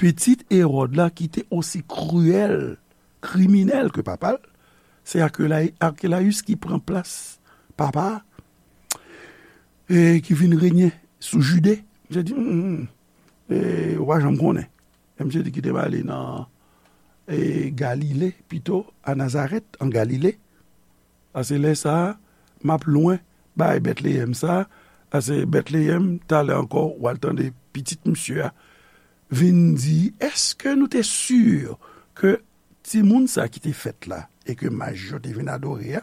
pitit Ewòd la, ki te osi kriyèl, kriminèl ke papa l, se Arkelay-, Arkelayis ki pran plas papa a, e ki vin renye sou Jide. Misye di, hmm, hmm, e, ou pa janm konnen. E misye di kite m ale nan, e, Galile, pito, a Nazarèt, an Galile. Paske lè sa a, m ap lwen bay Bètleyèm sa a, paske Bètleyèm, talè ankò, w al tande pitit misye a vin di, èske nou te si ke timoun sa a ki te fèt la, e ke maj yo te vin adore a,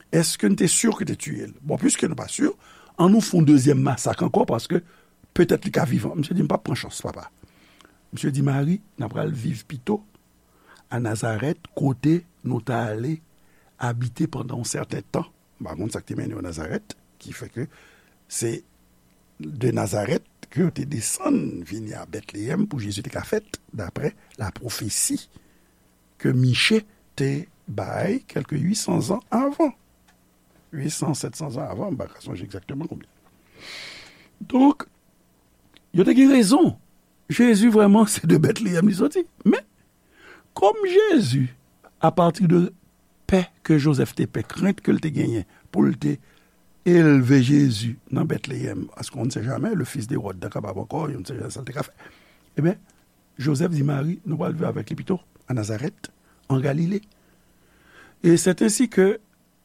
èske n te si ke te tiye l? Bon, piske nou pa si, ann nou fè yon dezyèm masak ankò, paske petèt li ka vivan. Misye di, m p ap pran chans, papa. Misye di, Mari, n a pral viv pito a Nazarèt, kote nou t ale abite pandan yon sèten tan. M pa konn sa k te mennen yo Nazarèt, ki fè ke se de Nazarèt ke yo te desann vini a Bètleyèm pou Jezi te ka fèt, daprè la pwofesi ke Miche te bay kèlke uit san zan avan. Uit san, sèt san zan avan, m pa ka sonje egzakteman konbyen. Donk, yo te gen rezon. Jezi vrèman se de Bètleyèm li soti. Men, kòm Jezi, apati de pè ke Jozèf te pè, krent ke l te genyen pou l te elve Jezi nan Bètleyèm, paske on ne sait jamais, le fils d'Hérode te kapab ankò, yo n sait jamais sa l te ka fè. Ebyen, Jozèf di Mari, nou pral viv avèk li pito, a Nazarèt, an Galile. E c'est ainsi que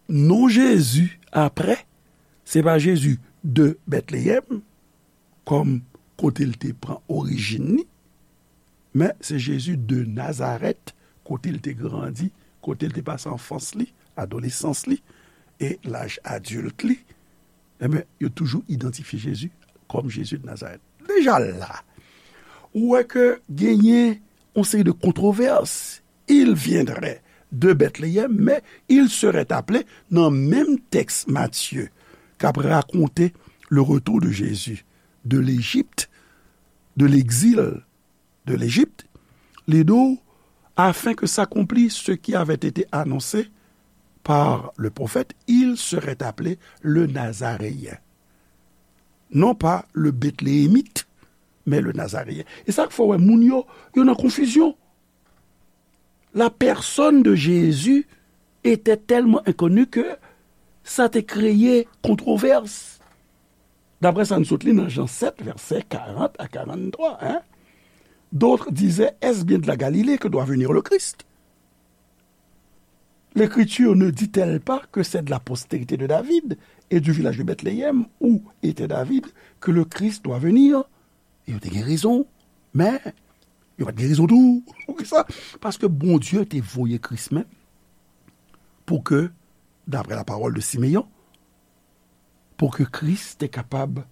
non Jezi, apre, se pa Jezi de Bètleyèm, kòm kote l te pran orijin li, Men se Jezi de Nazarèt, kote l te grandi, kote l te pase anfans li, adolesans li, e laj adilt li. Enben, yo toujou idantifye Jezi kòm Jezi de Nazarèt. Deja la, ou wè ke genyen yon seri de kontrovès. Il viendrait de Bethléem, mais il serait appelé, nan menm tèks Matye, k ap rakonte le retour de Jésus de l'Égypte, de l'exil de l'Égypte, li di w, afin que s'accomplisse ce qui avait été annoncé par le prophète, il serait appelé le Nazaréen. Non pas le Bétléemite, mais le Nazaréen. E sa k fè w wè moun yo, yo nan konfizyon. La personne de Jésus était tellement inconnue que sa te kreye kontrovès. Daprè sa n sot li nan Jan sèt, vèsè karant a karanntwa, hein? D'autres disaient, est-ce bien de la Galilée que doit venir le Christ? L'Écriture ne dit-elle pas que c'est de la postérité de David et du village de Bethléem où était David que le Christ doit venir? E yo te gen rezon, men yo pa t gen rezon tou. Poukisa? Paske Bondye te voye Kris menm pou ke, d'après la parole de Simeyon, pou ke Kris te kapab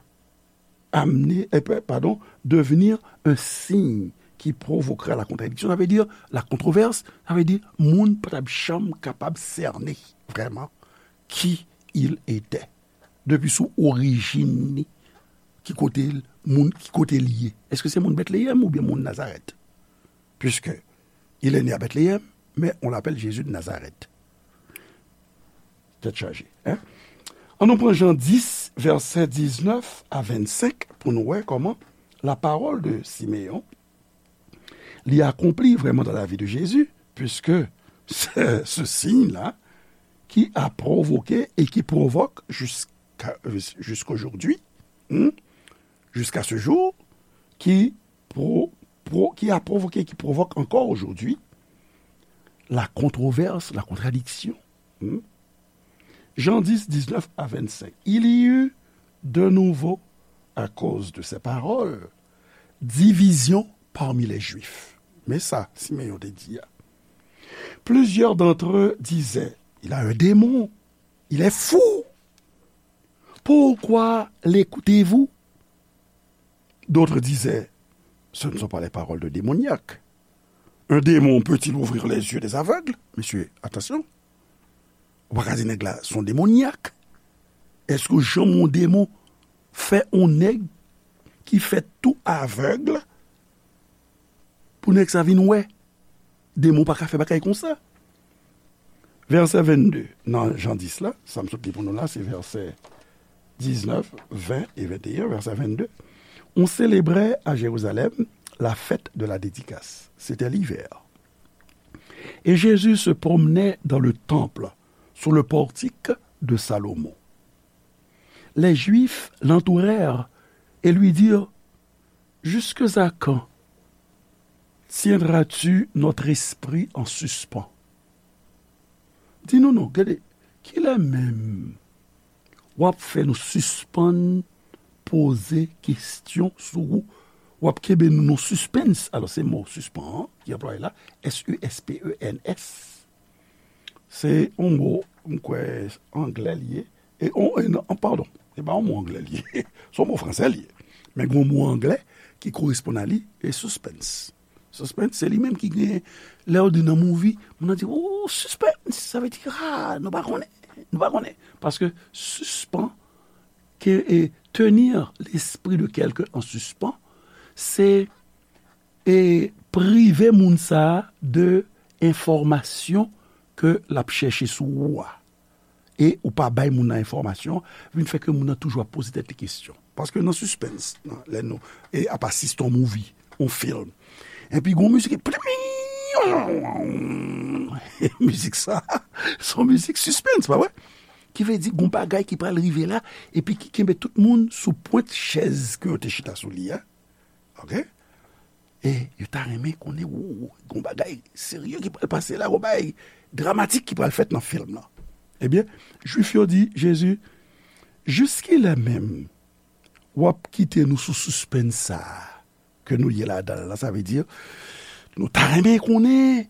amener, eh, pa- pardon, devenir un signe qui provoquera la contradiction, sa vle di la kontrovès, sa vle di moun pa t ap janm kapab sène vrèman qui il était. Depi sou orijin li, ki kote l, moun, ki kote l ye. Èske se moun Bètleyèm oubyen moun Nazarèt? Puisque il est né à Bethléem, mais on l'appelle Jésus de Nazareth. Tèt chaje, hein? An nou pran Jan dis, vèsè diznèf a vennsenk, pou nou wè kòman la parole de Simeon, li akonpli vrèman dans la vie de Jésus, puisque c'est ce signe-là qui a provoqué et qui provoque jusqu'à, jusqu'aujourd'hui, hmm, jusqu'à ce jour, qui pro-, pro-, qui a provoqué, qui provoque encore aujourd'hui la controverse, la contradiction. Hmm? Jean dix, dix-neuf à vingt-cinq. Il y eut de nouveau, à cause de ces paroles, division parmi les Juifs. Men sa Simeyon te di a. Plusieurs d'entre eux disaient, il a un démon, il est fou. Pourquoi l'écoutez-vous? D'autres disaient, ce ne sont pas les paroles de démoniaque. Un démon peut-il ouvrir les yeux des aveugles? Mesye, atansyon. Ou pa ka di nèg la se yon demonyak. Èske w janm wè yon demon fè yon nèg ki fèt tou avèg pou nèg sa vin wè? Demon pa ka fè bagay konsa. Vèsè vennde nan Jan dis la, sa m sot li pou nou la, se vèsè diznèf, ven e venteyen, vèsè vennde. On célébrait à Jérusalem la fête de la dédicace. C'était l'hiver. Et Jésus se promenait dans le temple, sous le portique de Salomon. Les Juifs l'entourèrent et lui dirent, jusque à quand tiendras-tu notre esprit en suspens? Di nou non, gade, kilè menm w ap fè nou sispann poze kesyon sou ou? W ap kenbe nou nan sispens. Alò, se mo sispan an ki anplwaye la, S U S P E N S. Se yon mo, m kwè, anglè li ye. E, on, e non, padon, se pa yon mo anglè li ye. Se yon mo fransè li ye. Men gen yon mo anglè ki koresponn a li, e suspense. Suspense, se li menm ki gen, lè yo di nan movie, moun nan di, oh, suspense, sa vle di, ah, nou pa konnen, nou pa konnen. Paske sispan, ke, e, tenir l'esprit de quelqu'un en suspens, se e prive moun sa a de enfòmasyon ke l ap chèche sou ou a. E ou pa bay moun nan enfòmasyon, vin fè ke moun nan toujou ap poze tèt li kesyon. Paske nan sispens, nan, lè nou, e ap asiste yon movie, yon film, epi gon mizik, mizik sa, se yon mizik sispens, pa vre? Ki vle di gon bagay ki pral rive la, epi ki kenbe tout moun sou pwent chèz ke yo te chita sou li a. Ok? E yo ta renmen konnen, ou, gon bagay serye ki pral pase la, gon bagay dramatik ki pral fèt nan film nan. Ebyen, Jwif yo di Jezi, jiskilè menm w ap kite nou sou sispens sa a? ke nou ye ladan l la. Sa vle di, nou ta renmen konnen,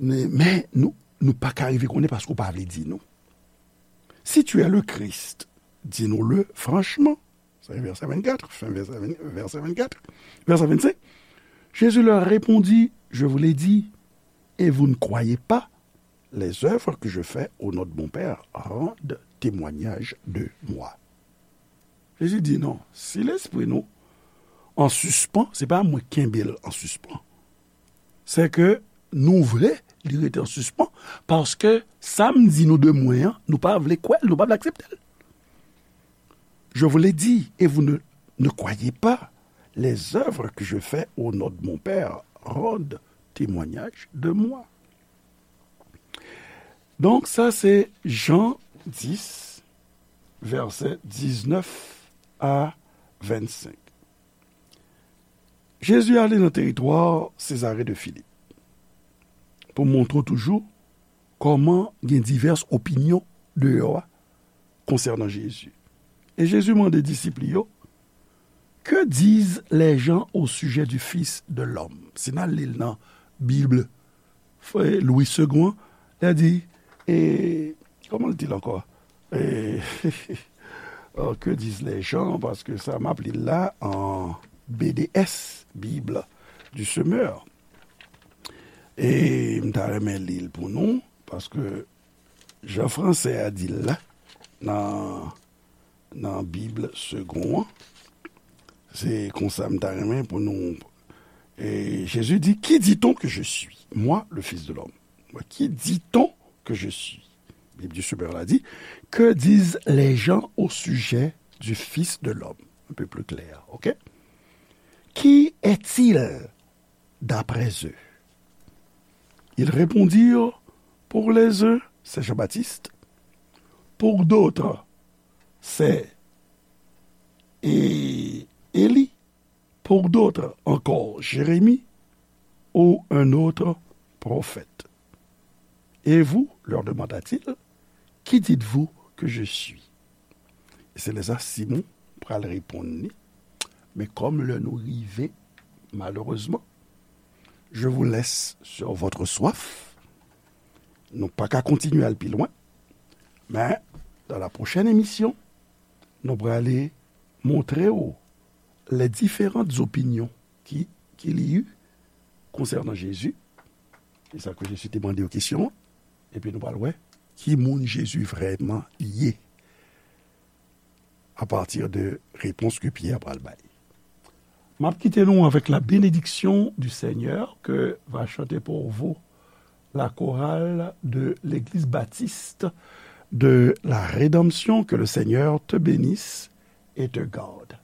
men nou, nou pa ka rive konnen paske w pa vle di nou. Si tu es le Christ, dis-nous-le franchement. Sa se vèsè vennkat, fen vèsè ven-, vèsè vennkat. Vèsè vennsenk. Jésus leur répondit, je vous l'ai dit, et vous ne croyez pas, les œuvres que je fais au nom de mon Père rendent témoignage de moi. Jezi di non, si lespri nou an sispan, se pa mwen kenbe l an sispan. Se ke nou vle li rete an sispan, paske sa m di nou de mwen an, nou pa vle kwè l, nou pa vle aksepte l. Je vous l'ai dit, et vous ne, ne croyez pas. Les œuvres que je fais au nom de mon Père rendent témoignage de moi. Donk, sa se Jan dis, vèsè diznèf a vennsenk. Jezi ale nan teritwa Sezare de Filip pou montre w toujou kòman gen divès opinyon deyò a konsènan Jezi. E Jezi mande disip li yo, Que disent les gens au sujet du Fils de l'homme? Si n al li l nan Bib Louis Segond an, li di, e, kòman l di l ankò? E, oh, que disent les gens, paske sa m ap li l la an B D S, Bible du Semeur. E m ta renmen li l pou nou, paske jan fransè a di l la, nan, nan Bib Segond an, se konsa m ta renmen pou nou. E Jezi di, Qui dit-on que je suis, moi, le Fils de l'homme? Qui dit-on que je suis? Bible du Semeur la dit, Que disent les gens au sujet du Fils de l'homme? Un peu plus clair, ok? Qui est-il d'après eux? Ils répondirent, Pour les uns, c'est Jean-Baptiste, pour d'autres, c'est É-, Élie, pour d'autres encore, Jérémie ou un autre prophète. Et vous, leur demanda-t-il, qui dites-vous que je suis? E se lè sa Simon pral reponn li, men kòm lè nou rive, malerezman, je vous laisse sur votre soif. Nou pa ka kontinye al pi lwen, men dans la prochaine émission, nou prale montre w les différentes opinions ki, ki li yo konsènan Jezi. E sa ke Jezi te mande yo kesyon an. Epi nou pral wè ki moun Jezi vrèman ye apati de repons ke Pyè pral bay. M ap kite nou avec la bénédiction du Seigneur que va chanter pour vous la chorale de l'Église baptiste de la Rédemption. Que le Seigneur te bénisse et te garde.